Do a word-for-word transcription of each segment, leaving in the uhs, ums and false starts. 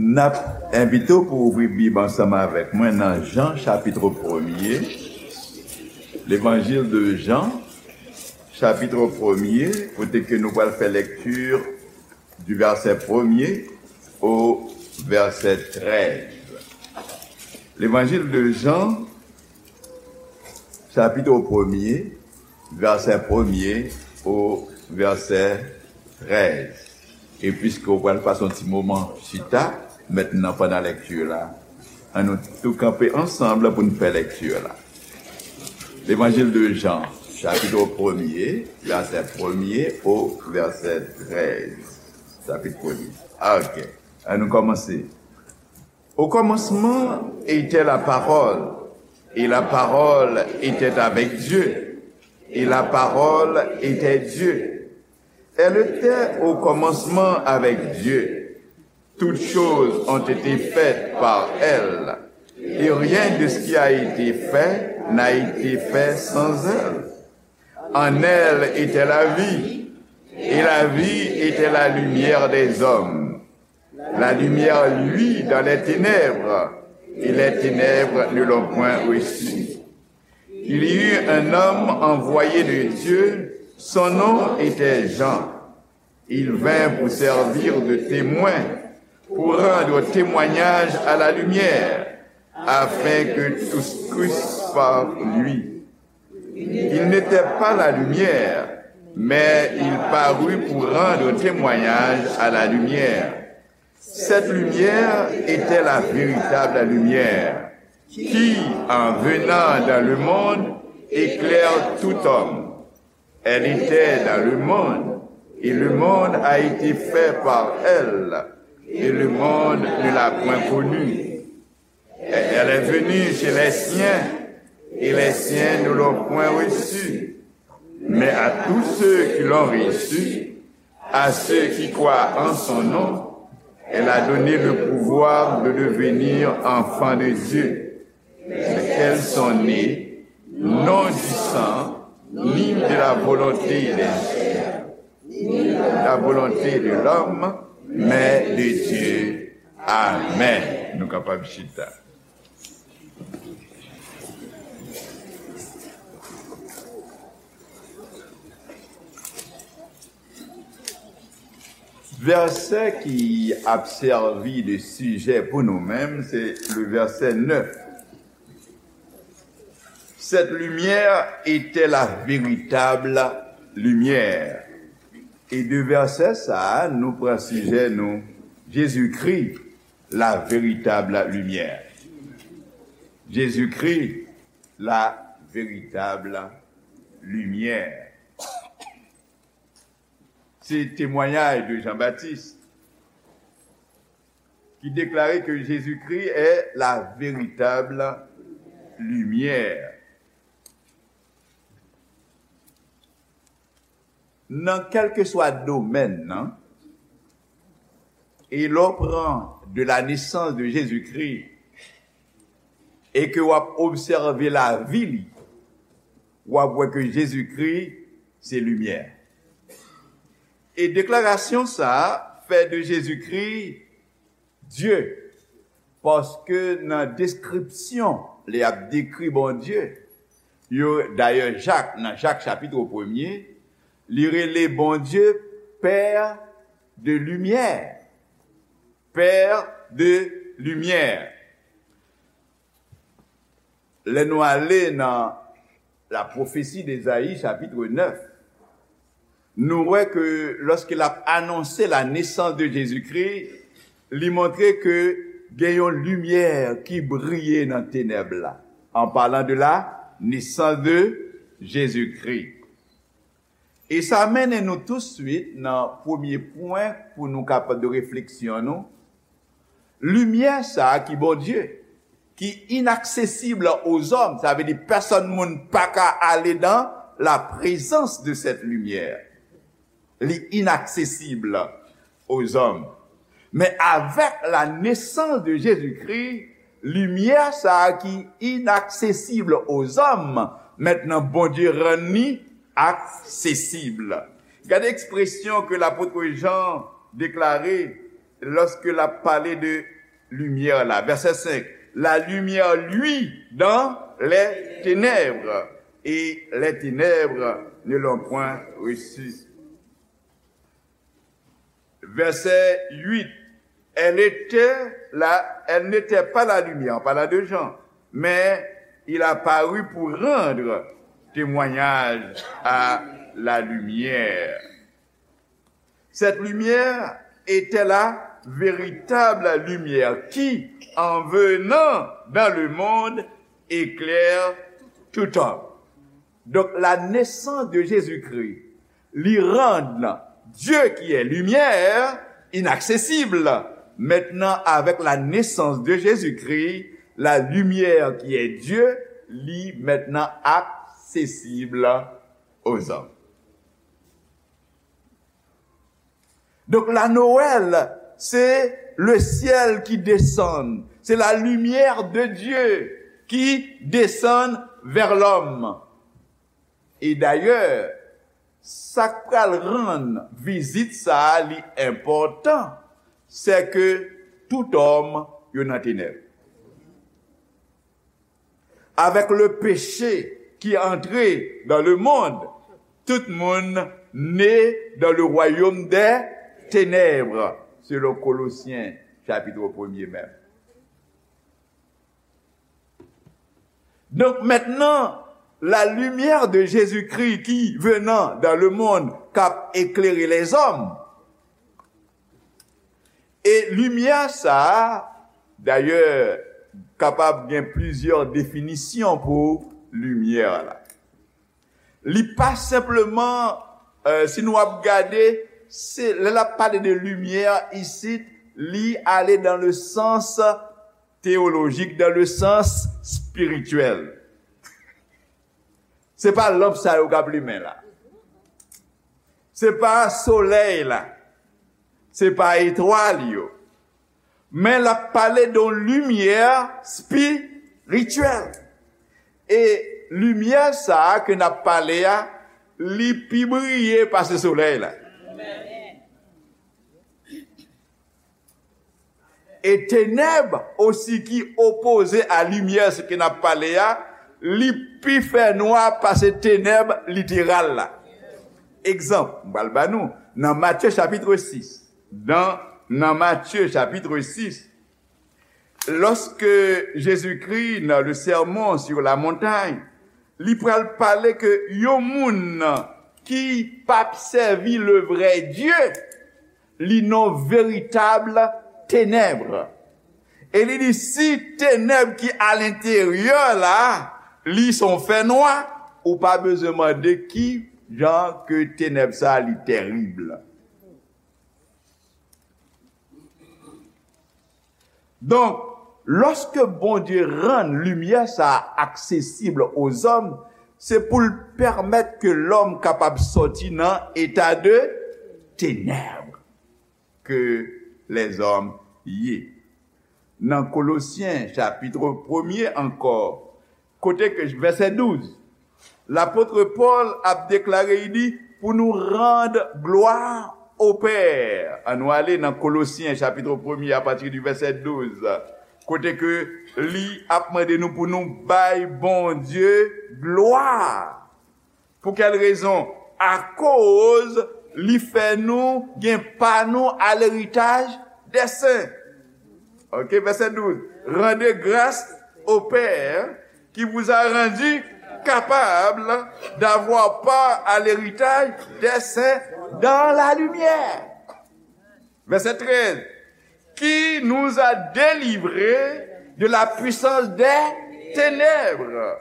N ap envite w pou ouvri Bib ansanm avèk mwen nan Jan, chapit premye, Levanjil de Jan, chapit premye, kote ke nou pral fè lekti du verset premier au verset treize. Levanjil de Jan, chapit premye, verset premier au verset treize. E piske w pral pase yon ti moman chita mentnan pandan lekti la, ann nou tou kanpe ansanm pou n fè lekti la. Levanjil de Jan, chapit premye, verset premier au verset treize. Chapit premye. Ok. Ann nou kòmanse. Au commencement était la parole, et la parole était avec Dieu, et la parole était Dieu. Elle était au commencement avec Dieu. Toutes choses ont été faites par elle, et rien de ce qui a été fait n'a été fait sans elle. En elle était la vie, et la vie était la lumière des hommes. La lumière luit dans les ténèbres, et les ténèbres ne l'ont point reçue. Il y eut un homme envoyé de Dieu, son nom était Jean. Il vint pour servir de témoin, pour rendre témoignage à la lumière, afin que tous crussent par lui. Il n'était pas la lumière, mais il parut pour rendre témoignage à la lumière. Cette lumière était la véritable lumière, qui, en venant dans le monde, éclaire tout homme. Elle était dans le monde, et le monde a été fait par elle, et le monde ne l'a point connue. Elle est venue chez les siens, et les siens ne l'ont point reçue. Mais à tous ceux qui l'ont reçue, à ceux qui croient en son nom, elle a donné le pouvoir de devenir enfants de Dieu, mais qu'elles sont nées non du sang, ni de la volonté de la chair, ni de la volonté de l'homme, mais de Dieu. Amen. Nou kapab chita. Vèsè ki ap sèvi de sijè pou nou menm, se le verset neuf. Cette lumière était la véritable lumière. E de vèsè sa a, nou pran sijè nou, Jezikri, la véritable lumière. Jezikri, la véritable lumière. Se temwayaj de Jan Batis ki deklare ke Jezikri est la véritable lumière. Nan kèlkeswa domèn nan, e lè w pran de la naissance de Jésus-Christ e ke w ap obsève lavi li, w ap wè ke Jezikri se limyè. E deklarasyon sa a fè de Jezikri Dye, paske nan deskripsyon lè y ap dekri Bondye, yo, dayè Jak, nan Jak chapit premye, li rele Bondye Père de lumière. Père de lumière. Lè nou ale nan la pwofesi de Ezayi, chapit nèf, nou wè ke lòske l ap anonse la naissance de Jésus-Christ, li montre ke gen yon limyè ki briye nan tenèb la, en parlant de la naissance de Jésus-Christ. E sa mennen nou touswit nan premye pwen pou nou kapab de refleksyon nou. Limyè sa a ki Bondye, ki inaksesib aux hommes, sa vle di pèsonn moun pa ka ale dans la présence de cette lumière. Li inaksesib aux hommes. Men avèk la naissance de Jésus-Christ, limyè sa a ki inaksesib aux hommes, mentnan Bondye rann li aksesib. Gade ekspresyon ke lapot Jan deklare Lorsque l ap pale de limyè la, vèsè senk, la lumière luit dans les ténèbres, et les ténèbres ne l'ont point reçu. Verset huit, elle était la, elle n'était pas la lumière, en parlant de Jean, mais il a paru pour rendre témoignage à la lumière. Cette lumière était la véritable lumière qui, en venant dans le monde, éclaire tout homme. Donc la naissance de Jésus-Christ li rann Dieu qui est lumière inaccessible. Maintenant, avec la naissance de Jésus-Christ, la lumière qui est Dieu, li maintenant accessible aux hommes. Donc la Noël, c'est le ciel qui descend, c'est la lumière de Dieu qui descend vers l'homme. E dayè, sa k pral rann vizit sa a li enpòtan, c'est que tout homme yo nan tenèb. Avec le péché qui est entré dans le monde, tout moun né dans le royaume des ténèbres, selon Colossiens chapitre premier menm. Donc maintenant, la lumière de Jésus-Christ qui venant dans le monde, k ap éclairer les hommes. E limyè sa a, dayè, kapab gen plizyè definisyon pou limyè la. Li pa senpleman, euh, si nou ap gade, se, lè l ap pale de limyè isit, li ale dans le sens théologique, dans le sens spirituel. Se pa lanp sa yo k ap limen la. Se pa solèy la. Se pa etwal yo. Men l ap pale de yon limyè espirityèl. E limyè sa a ke n ap pale a, li pi briye pase solèy la. E tenèb osi ki opoze a limyè, se ke n ap pale a, li pi fè nwa pase tenèb literal la. Egzanp, m pral ba nou, nan Matye chapitre sis, dans, dans Matthieu chapitre six, lorsque Jésus-Christ, dans le sermon sur la montagne, li pral pale ke yon moun ki p ap sèvi le vrai Dieu, li nan veritab tenèb. E li di, si tenèb ki alenteryè la, li son fènwa, ou pa bezwen mande ki jan ke tenèb sa li tèrib. Donk, lòske Bondye rann limyè sa a aksesib ozòm, se pou l pèmèt ke lòm kapab sòti nan eta de tenèb ke lèzòm ye. Nan Kolosyen, chapit premye ankò, kote ke, vèsè douz, lapot Pòl ap deklare, li di, pou nou rann glwa o Pè. Ann nou ale nan Kolosyen, chapit premye, apati di vèsè douz, kote ke li ap mande nou pou nou bay Bondye glwa. Pou kèl rezon? Akoz li fè nou gen pa nou a leritaj dè sen. Ok, vèsè douz. Rendez grâce au Père qui vous a rendu capable d'avoir part à l'héritage des saints dans la lumière. Vèsè trèz. Qui nous a délivrés de la puissance des ténèbres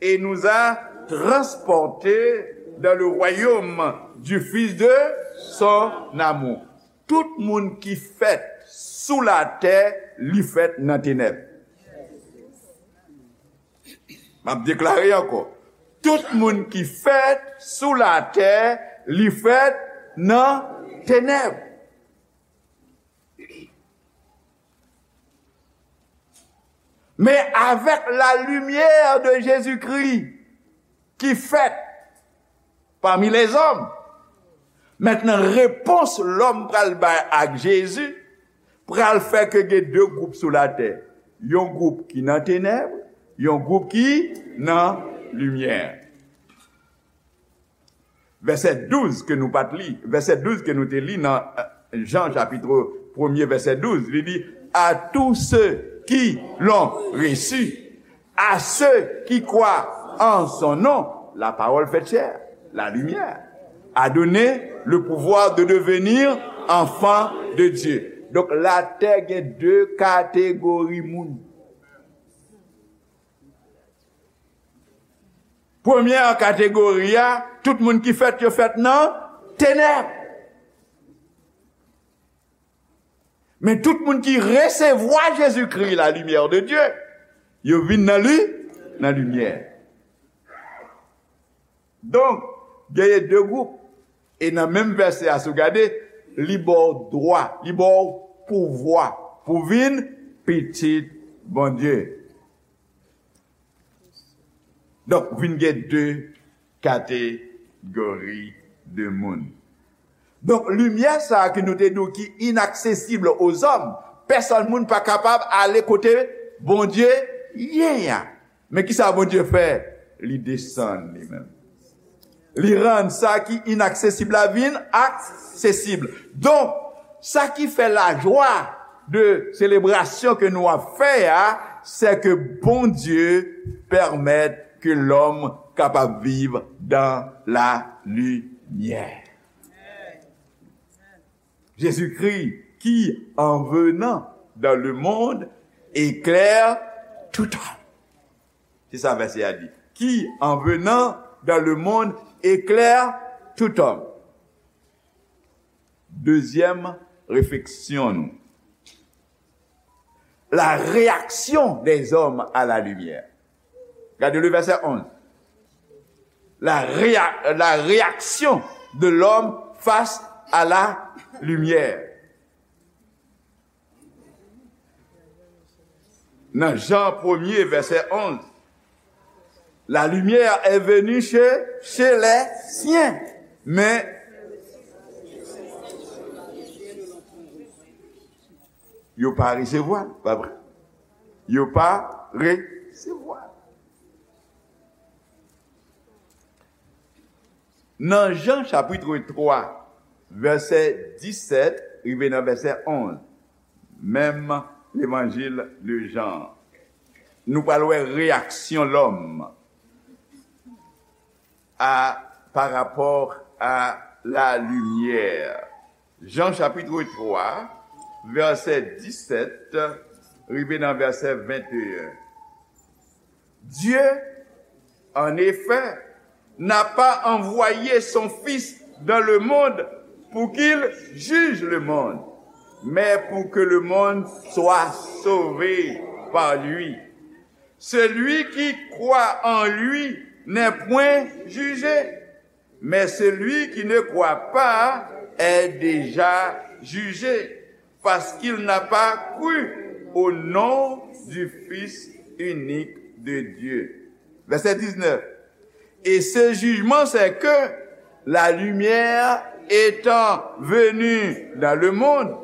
et nous a transportés dans le royaume du Fils de son amour. Tout moun ki fèt sou latè, li fèt nan tenèb. M ap deklare ankò. Tout moun ki fèt sou latè, li fèt nan tenèb. Men avèk la limyè de Jezikri ki fèt pami lèzòm, mentnan repons lòm pral bay ak Jezi, pral fè ke gen de gwoup sou latè. Yon gwoup ki nan tenèb, yon gwoup ki nan limyè. Vèsè douz ke nou pa t li, vèsè douz ke nou te li nan, euh, Jan chapit premye, vèsè douz, li di, à tous ceux qui l'ont reçu, à ceux qui croient en son nom, la parole faite chair, la lumière, a donné le pouvoir de devenir enfants de Dieu. Donk, latè gen de kategori moun. Premyè kategori a, tout moun ki fèt, yo fèt nan tenèb. Men tout moun ki resevwa Jezikri, la lumière de Dieu, yo vin nan li, nan limyè. Donk, genyen de gwoup. E nan menm vèsè a, si w gade, li ba w dwa, li ba w pouvwa pou vin pitit Bondye. Donk, vin gen de kategori de moun. Donk, limyè sa a ke nou te di w ki inaksesib ozòm, pèsòn moun pa kapab ale kote Bondye ye a. Men ki sa Bondye fè? Li desann li menm. Li rann sa ki inaksesib la vin aksesib. Donk, sa ki fè lajwa de selebrasyon ke nou ap fè a, se ke Bondye pèmèt ke lòm kapab viv dans la lumière. Jésus-Christ, qui en venant dans le monde éclaire tout homme. Se sa vèsè a di. Qui, en venant dans le monde, éclaire tout homme. Dezyèm refleksyon nou. La réaction des hommes à la lumière. Gade le verset onze. La, réa- la réaction de l'homme face à la lumière. Nan Jan premye, vèsè onz, la lumière est venue chez, chez les siens, mais yo pa resevwa l, pa vre? Yo pa resevwa l. Nan Jan chapit twa, vèsè disèt rive nan vèsè onz, menm levanjil de Jan, nou pral wè reyaksyon lòm a, pa rapò a la limyè. Jan chapit twa, vèsè disèt rive nan vèsè venteyen. Dieu, en effet, n'a pas envoyé son Fils dans le monde pour qu'il juge le monde, mais pour que le monde soit sauvé par lui. Celui qui croit en lui n'est point jugé, mais celui qui ne croit pas est déjà jugé, parce qu'il n'a pas cru au nom du Fils unique de Dieu. Verset dix-neuf. Et ce jugement, c'est que la lumière étant venue dans le monde,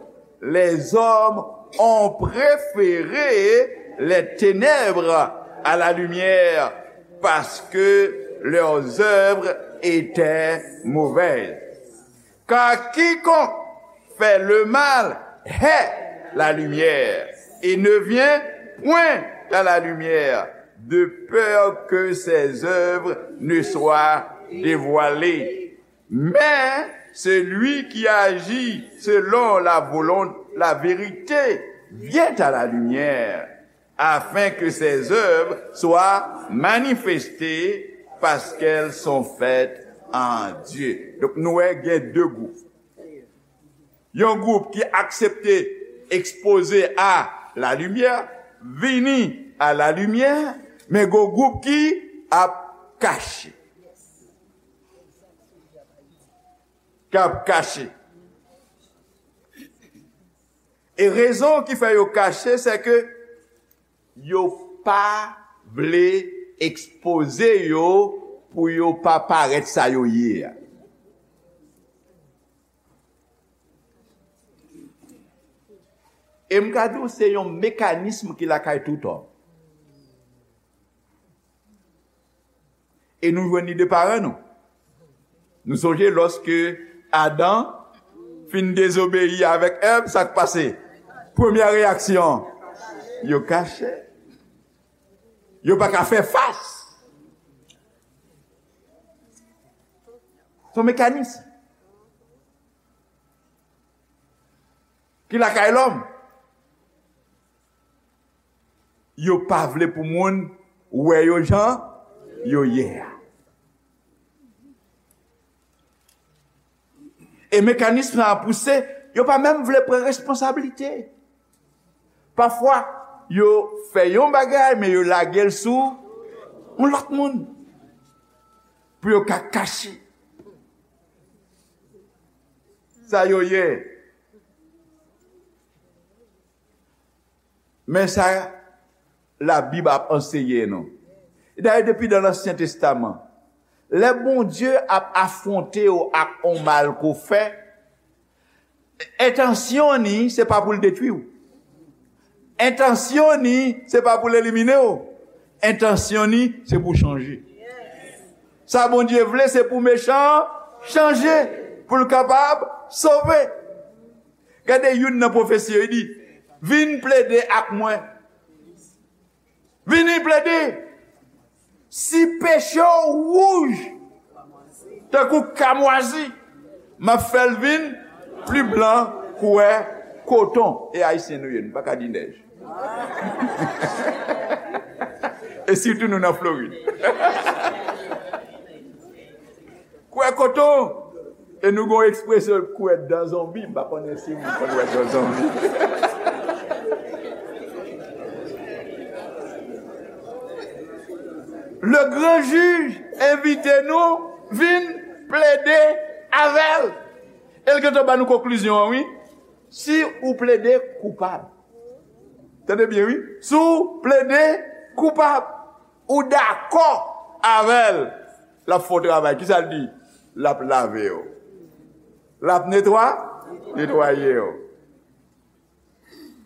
les hommes ont préféré les ténèbres à la lumière, parce que leurs œuvres étaient mauvaises. Car quiconque fait le mal hait la lumière et ne vient point à la lumière, de peur que ses œuvres ne soient dévoilées. Mais celui qui agit selon la volonté, la vérité, vient à la lumière, afin que ses œuvres soient manifestées, parce qu'elles sont faites en Dieu. Donk, nou wè gen de gwoup. Yon gwoup ki aksepte ekspoze a la limyè, vini a la limyè, men gon gwoup ki ap kache. K ap kache. E rezon ki fè yo kache, se ke yo pa vle ekspoze yo pou yo pa parèt sa yo ye a. E m ka di w, se yon mekanism ki lakay tout òm. E nou jwenn li de paran nou. Nou sonje lòske Adan fin dezobeyi avèk Èv, sa k pase? Premyè reyaksyon, yo kache. Yo pa ka fè fas. Se yon mekanis ki lakay lòm. Yo pa vle pou moun wè yo jan yo ye a. E mekanis sa a pouse, yo pa menm vle pran responsablite. Pafwa, yo fè yon bagay, men yo lage l sou yon lòt moun. Pou yo ka kache sa yo ye. Men sa Labib ap anseye nou. Dayè, depi nan Ansyen Testaman, lè Bondye ap afwonte w ak yon mal ke w fè, entansyon ni, se pa pou l detwi w. Entansyon ni, se pa pou l elimine w. Entansyon ni, se pou w chanje. Sa Bondye vle, se pou mechan an chanje, pou l kapab sove. Gade youn nan pwofesi yo, li di, vin plede ak mwen. Vini plede. Si peche w wouj tankou kamwazi, m ap fè l vin pli blan kouwè koton. E Ayisyen nou ye, nou pa ka di nèj. E sitou nou nan Florid. Kouwè koton. E nou gon ekspresyon kouwè dan zonbi. M pa konnen si moun konn wè dan zonbi. Le gran jij envite nou vin plede avè l. E l gentan ba nou konklizyon an, wi. Si ou plede koupab. Tande byen, wi. Si w plede koupab, ou dakò avè l, l ap fè w travay. Kisa l di? L ap lave w. L ap netwa-, netwaye w.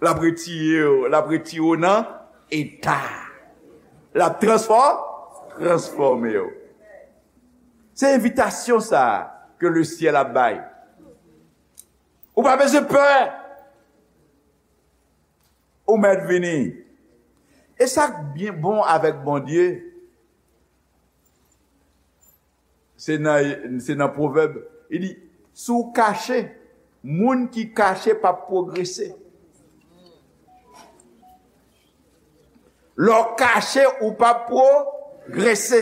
L ap retire w, l ap retire w nan eta. L ap transfò-, transfòme w. Se envitasyon sa a ke lesyèl ap bay. Ou pa bezwen pè. Ou mèt vini. E sa k byen bon avèk Bondye, se nan, se nan Pwovèb, li di, si w kache, moun ki kache p ap pwogrese. Lè w kache, ou p ap pwogrese.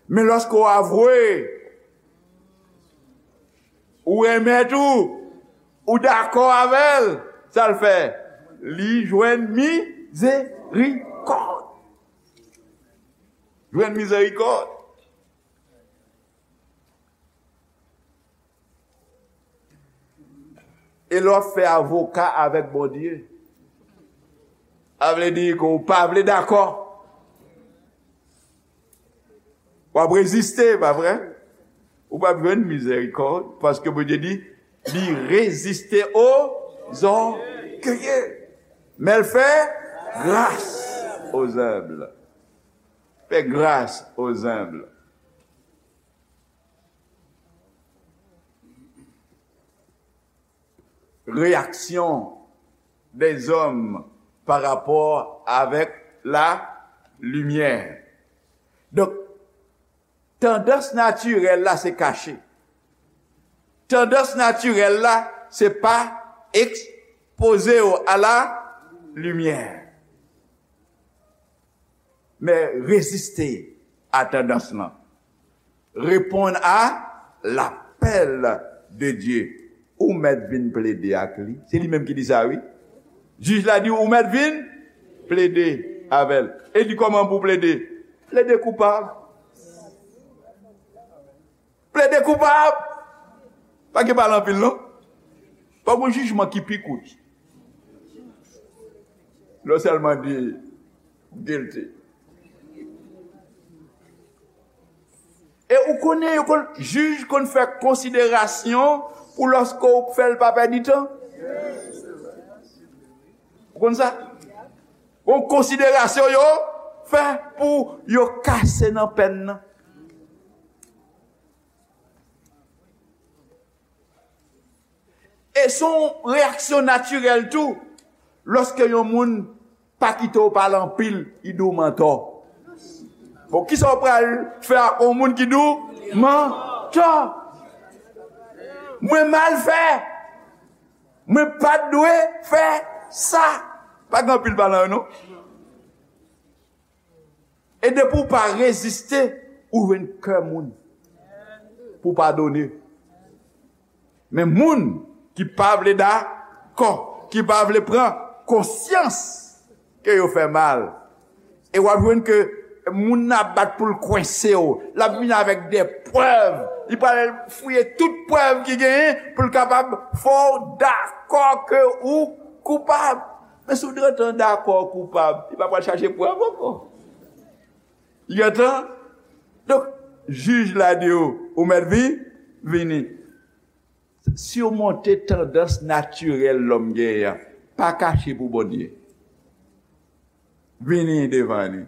Men lòske w avwe, ou renmen tou, ou dakò avè l, sa l fè? Li jwenn mizerikòd. Jwenn mizerikòd. E lè w ap fè avoka avèk Bondye, sa vle di ke w pa vle dakò. W ap reziste, pa vre? Ou p ap jwenn mizerikòd, paske Bondye di, li reziste aux orgueilleux, men l fè gras aux humbles. Fè gras aux humbles. Reyaksyon dèzòm pa rapò avèk la limyè. Donk, tandans natirèl la se kache. Tandans natirèl la se pa ekspoze w a la limyè. Men reziste a tandans lan. Reponn a lapèl de Dye. Ou mèt vin plede ak li. Se li menm ki di sa, wi. Jij la di, ou mèt vin plede avè l. E di kòman pou plede? Plede koupab. Plede koupab. Pa gen pale anpil, non. Pa gen jijman ki pi kout. Lè w sèlman di guilty. E ou konnen, yo konn, jij konn fè konsiderasyon pou lòske w fè l pa pèdi tan. Ou konn sa? Yon konsiderasyon yo fè pou yo kase nan pèn nan. E se yon reyaksyon natirèl tou, lòske yon moun pa kite w pale anpil, li di w mantò. Bon, kisa w pral fè ak yon moun ki di w mantò? Mwen mal fè. Mwen pa t dwe fè sa. Pa gen anpil palan yo, non. E depi w pa reziste, ou jwenn kè moun pou padone. Men moun ki pa vle dakò, ki pa vle pran konsyans ke yo fè mal, e w ap jwenn ke moun nan ap bat pou l kwense w. L ap vin avèk de prèv. Li pral fouye tout prèv ki genyen pou l kapab fè w dakò ke ou koupab. Men si w gentan dakò koupab, li pa pral chache prèv ankò. Li gentan. Donk, jij la di w, ou mèt vi-, vini. Simonte tandans natirèl lòm genyen an. Pa kache pou Bondye. Vini devan li.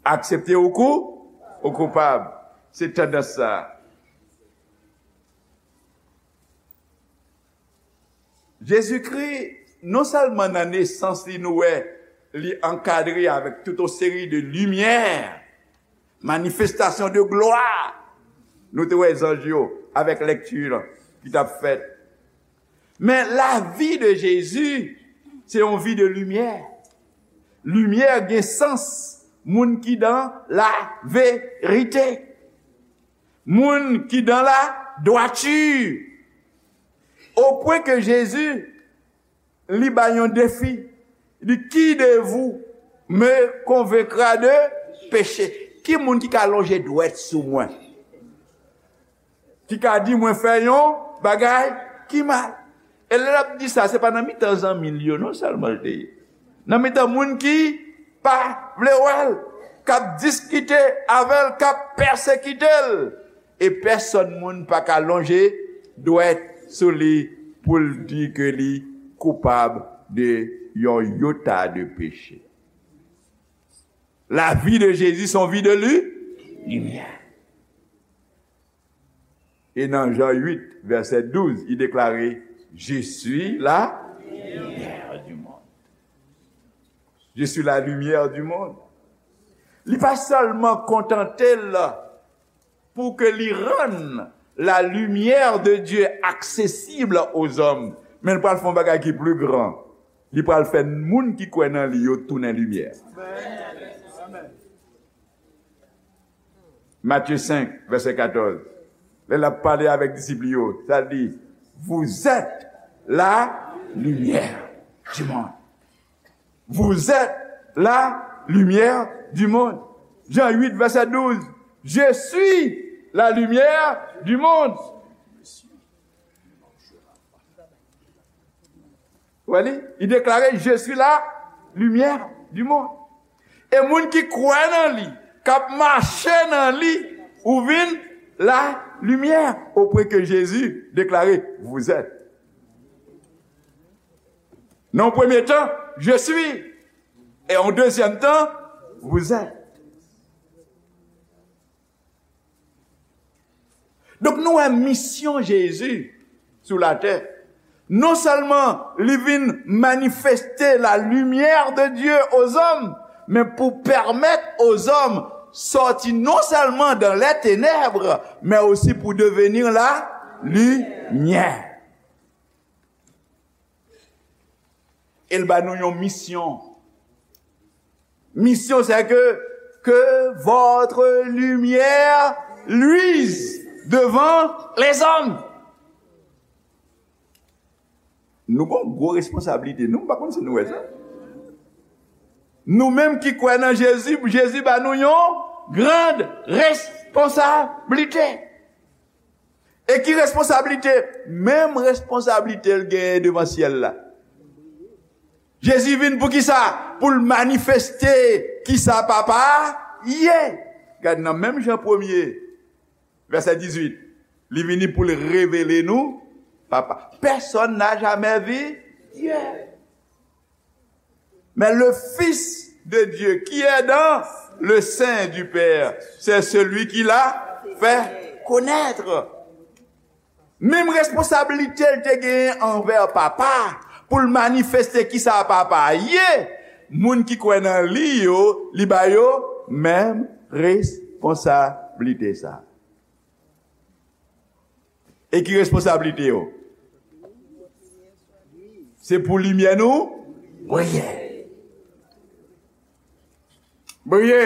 Aksepte ou kou-, ou koupab. Se tandans sa. Jezikri, non sèlman nan nesans li, nou wè li ankadre avèk tout yon seri de limyè, manifestasyon de glwa. Nou te wè zanj yo avèk lèkti lan ki t ap fèt. Men lavi de Jezi, se yon vi de limyè. Limyè gen sans moun ki dan laverite. Moun ki dan ladwati. Au point que Jésus li bay yon defi. Li di, qui de vous me convaincra de péché? Ki moun ki ka lonje dwèt sou mwen? Ki ka di mwen fè yon bagay ki mal? E lè l ap di sa, se pa nan mitan zanmi l yo non sèlman l te ye. Nan mitan moun ki pa vle wè l, k ap diskite avè l, k ap pèsekite l. E pèsòn moun pa ka lonje dwèt sou li pou l di ke li koupab de yon yota de peche. La vie de Jésus, son vie de lu-, lumière. E nan Jan uit, vèsè douz, li deklare, Je suis la lumière du monde. Je suis la lumière du monde. Li pa sèlman kontante l pou ke li rann la lumière de Dieu accessible aux hommes, men l pral fè yon bagay ki pli gran. Li pral fè moun ki kwè nan li yo tounen limyè. Matye senk, vèsè katòz. Lè l ap pale avèk disip li yo, sa l di, Vous êtes la lumière du monde. Vous êtes la lumière du monde. Jan uit, vèsè douz. Je suis la lumière du monde. Wè li, li deklare, Je suis la lumière du monde. E moun ki kwè nan li, k ap mache nan li, ou vin la lumière, au point que Jésus déclarait, Vous êtes. Nan yon premye tan, Je suis. E yon dezyèm tan, Vous êtes. Donk, nou wè misyon Jezi sou latè. Non sèlman li vin manifeste la lumière de Dieu aux hommes, men pou pèmèt aux hommes sòti non sèlman dans les ténèbres, men osi pou devenir la lumière. E l ba nou yon misyon. Misyon, c'est que, que votre lumière luise devant les hommes. Nou gon gwo responsablite, nou, m pa konn si nou wè sa. Nou menm ki kwè nan Jezi, Jezi ba nou yon grand responsablite. E ki responsablite? Menm responsablite l genyen devan syèl la. Jezi vin pou ki sa? Pou l manifeste ki sa Papa a ye. Gad nan menm Jan premye, vèsè dizuit, li vini pou l revele nou Papa. Personne n'a jamais vu Dieu. Mais le Fils de Dieu qui est dans le sein du Père, c'est celui qui l'a fait connaître. Menm responsablite l te genyen anvè Papa, pou l manifeste kisa Papa ye, moun ki kwè nan li yo, li ba yo menm responsablite sa. E ki responsablite yo? Se pou limyè nou briye. Briye.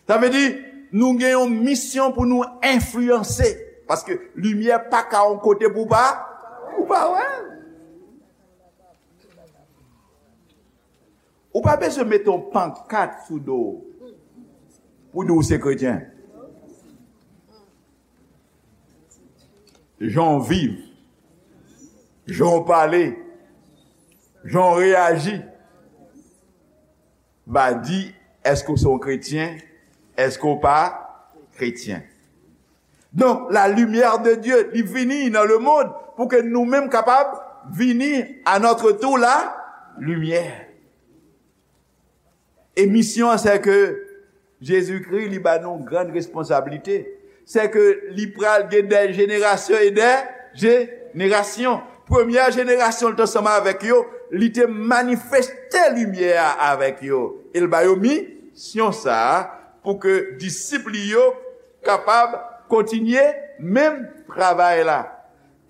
Sa vle di, nou gen yon misyon pou nou enfliyanse. Paske limyè pa ka yon kote pou pa, pou pa wè. Ou pa bezwen mete yon pankat sou do w pou di w se kretyen. Jan w viv, jan w pale, jan w reyaji va di èske w se yon kretyen, èske w pa kretyen. Donk, la lumière de Dieu, li vini nan le monde pou ke nou menm kapab vini à notre tour la lumière. E misyon an, se ke Jezikri, li ba nou grann responsablite. Se ke li pral gen de jenerasyon e de jenerasyon. Premyè jenerasyon, li te ansanm avèk yo, li te manifeste limyè a avèk yo. E l ba yo misyon sa a pou ke disip li yo kapab kontinye menm travay la.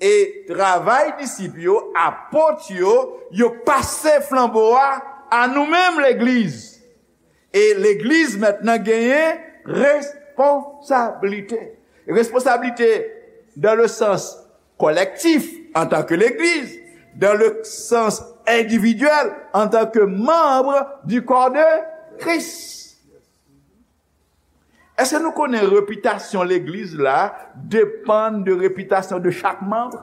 E travay disip yo, apot yo, yo pase flanbo a a nou menm legliz. E legliz mentnan genyen responsablite. Responsablite dans le sens collectif en tant que l'église, dans le sens individuel en tant que membre du corps de Christ. Èske nou konnen repitasyon legliz la depann de repitasyon de chak manm?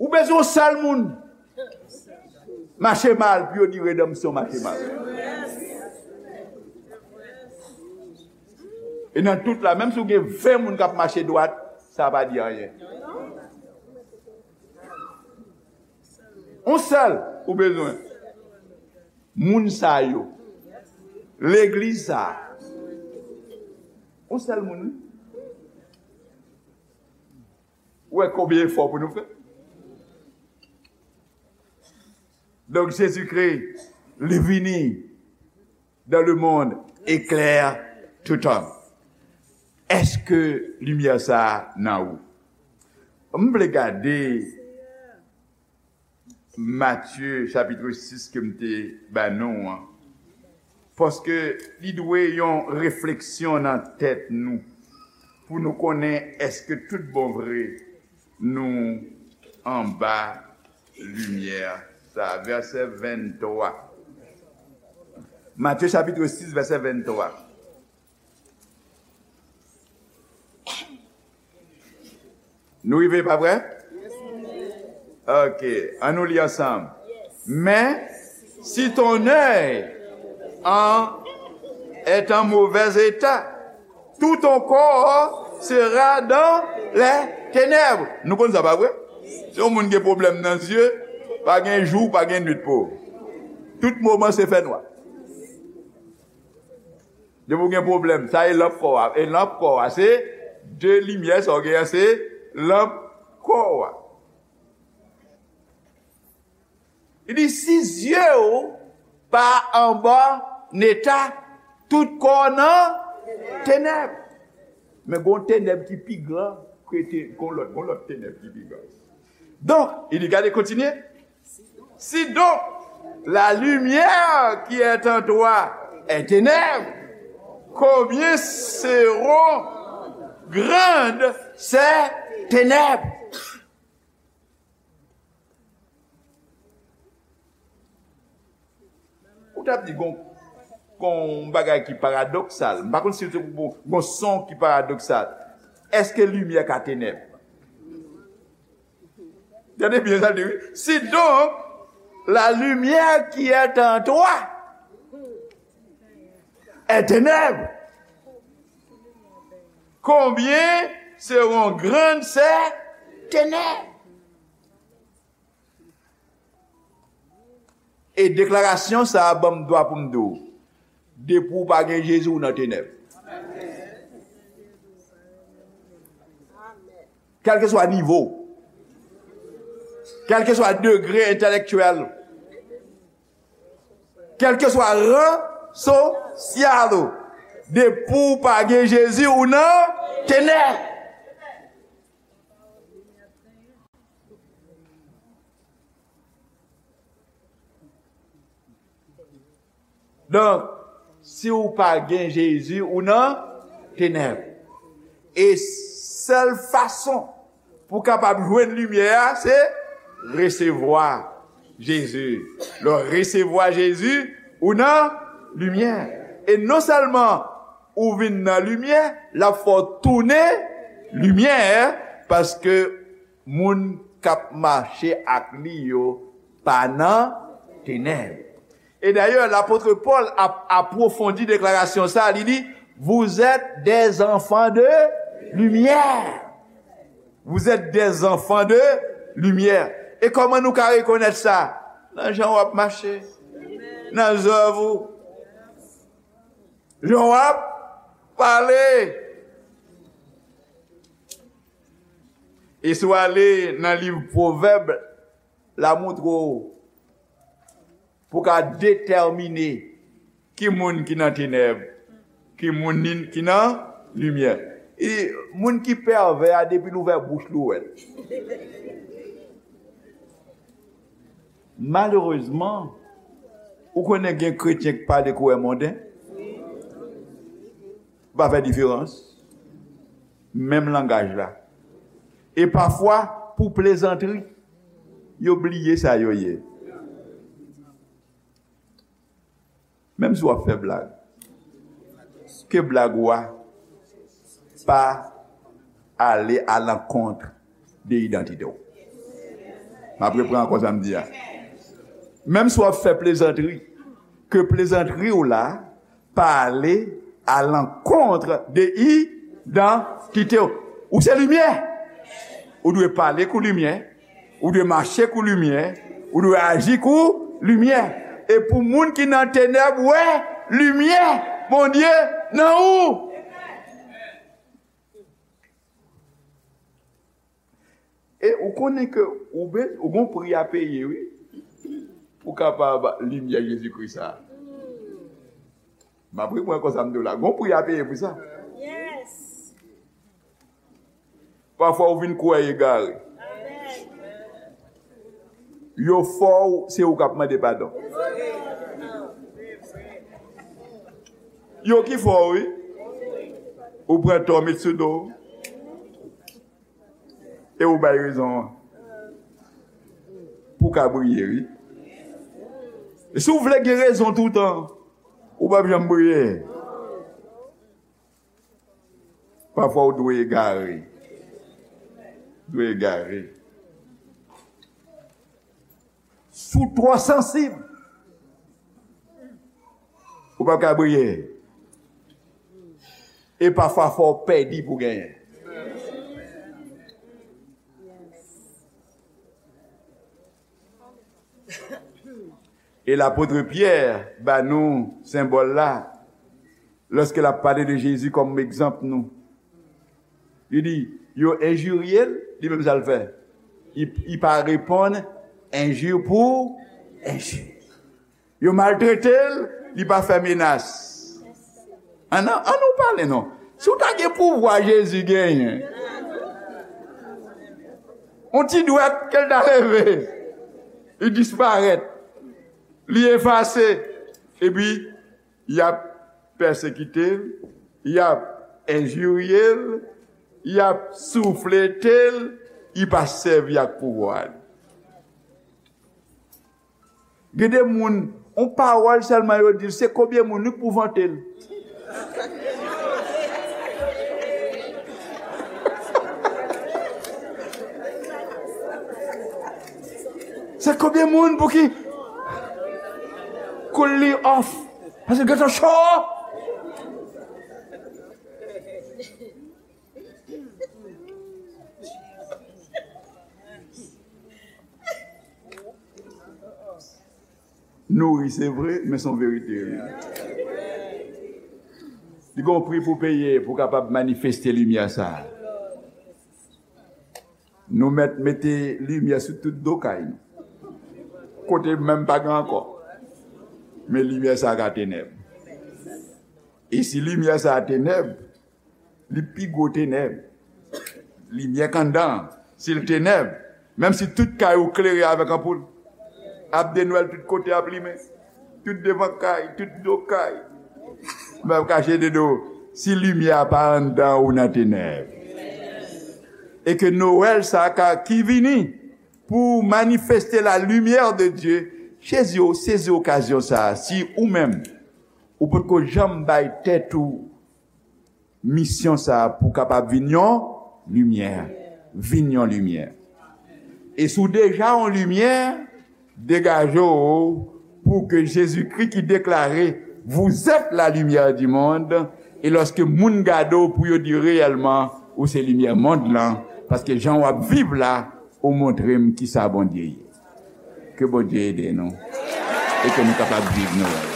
Ou bezwen yon sèl moun mache mal pou yo di redanmsyon mache mal. E nan tout la, menm si w gen ven moun k ap mache dwat, sa pa di anyen. Yon sèl ou bezwen. Moun sa yo. Legliz sa. Yon sèl moun, wi. Ou wè konbyen efò pou nou fè? Donk, Jezikri, li vini dans le monde, éclaire tout homme. Èske limyè sa a nan ou? M vle gade Matye chapit sis ke m te ba nou an. Paske li dwe yon refleksyon nan tèt nou, pou nou konnen èske tout bon vre nou anba limyè sa. Vèsè venntwa. Matye chapit sis, vèsè venntwa. Nou rive, pa vre? Ok, ann nou li ansanm. Mais si ton œil en, est en mauvais état, tout ton corps sera dans les ténèbres. Nou konn sa, pa vre? Si yon moun gen pwoblèm nan zye, pa gen jou, pa gen nwit pou ou. Tout moman se fènwa. Depi w gen pwoblèm, sa e lanp kò a. E lanp kò a, se de limyè, sa w gen an, se lanp kò a. Li di, si zye w pa anba neta, tout kò w nan tenèb. Men gon tenèb ki pi gran ke te, gon lòt, gon lòt tenèb ki pi gran. Donk, li di, gade, kontinye. Si donc la lumière qui est en toi est ténèbres, combien seront grandes ces ténèbres? Ou t ap di gon, gon bagay ki paradoksal. M pa konn si se pou gon son ki paradoksal. Èske limyè ka tenèb? Gade byen sa l di, wi. Si donc la lumière qui est en toi est ténèbres, combien seront grandes ces tenèb. E deklarasyon sa a ban m dwa pou m di w, depi w pa gen Jezi, ou nan tenèb. Kèlkeswa nivo w, kèlkeswa degre entèlektyèl ou, kèlkeswa ran sosyal ou, depi w pa gen Jezi, ou nan tenèb. Donk, si w pa gen Jezi, ou nan tenèb. E sèl fason pou w kapab jwenn limyè a, se resevwa Jezi. Lè w resevwa Jezi, ou nan limyè. E non sèlman ou vin nan limyè, l ap fè w tounen limyè, paske moun k ap mache ak li yo pa nan tenèb. E dayè, lapot Pòl ap apwofondi deklarasyon sa a, li di, vous êtes des enfants de lumière. Vous êtes des enfants de lumière. E kòman nou ka rekonèt sa? Nan jan w ap mache, nan zèv ou, jan w ap pale. E si w ale nan liv Pwovèb, l a montre w pou w ka detèmine ki moun ki nan tenèb, ki moun ki nan limyè. E moun ki pèvè a, depi l ouvè bouch li, ou wè l. Malerezman, ou konnen gen kretyen k pale koulè monden. Pa fè diferans. Menm langaj la. E pafwa, pou plezantri, yo bliye sa yo ye. Menm si w ap fè blag, ke blag ou a pa ale alankont de idantite w. M ap reprann ankò sa m di a. Menm si w ap fè plezantri, ke plezantri w la pa ale alankont de idantite w. Ou se limyè. Ou dwe pale kou limyè. Ou dwe mache kou limyè. Ou dwe aji kou limyè. E pou moun ki nan tenèb wè limyè Bondye nan ou. E ou konnen ke ou be, ou gon pri a peye, wi, pou kapab limyè Jezikri sa a. M ap reprann konsa m di w la. Gon pri a peye pou sa. Pafwa ou vin kwè egare. Yo fè w, se ou k ap mande padon. Yo ki fè w, wi. Ou pran tò, met sou do w. E ou bay rezon an. Pou w ka briye, wi. E si w vle gen rezon toutan, ou p ap janm briye. Pafwa ou dwe egare. Dwe egare. Si w twò sansib, ou p ap ka briye. E pafwa fò w pèdi pou genyen. E lapot Pyè ba nou senbòl la, lòske l ap pale de Jezi kòm egzanp nou. Li di, yo enjirye l, li menm sa l fè. Li, li pa reponn enji pou enji. Yo maltrete l, li pa fè menas. Ann, ann nou pale non. Si w ta gen pouvwa Jezi genyen, yon ti dwèt ke l ta leve, li disparèt, li efase, epi y ap pèsekite l, y ap enjirye l, y ap souflete l, li pa sèvi ak pouvwa l. Gen de moun, yon pawòl sèlman yo di l, se konbyen moun wi k pou vante l. Se konbyen moun pou ki cool li off? Paske gentan cho. Nouri, se vre, men se yon verite, wi. Li gen yon pri pou peye pou kapab manifeste limyè sa a. Nou mèt mete limyè sou tout do kay nou. Kote menm pa gen ankò. Men limyè sa a ka tenèb. E si limyè sa a tenèb, li pi gwo tenèb. Limyè k anndan an, si l tenèb, menm si tout kay ou klere avèk anpoul, ap de nwèl tout kote ap limen. Tout devan kay, tout do kay. Men ap kache de do, si limyè a pa anndan ou nan tenèb. E ke Nwèl sa a ka, ki vini pou manifeste la lumière de Dieu, sezi, sezi okazyon sa a, si ou menm, ou potko janm bay tèt ou misyon sa a pou kapab vin yon limyè. Vin yon limyè. E si w deja yon limyè, degaje w pou ke Jezikri ki deklare, vous êtes la lumière du monde, e lòske moun gade w pou yo di reyèlman ou se limyè mond lan, paske jan w ap viv la, ou montre m kisa Bondye ye. Ke Bondye ede nou e ke nou kapab viv nou.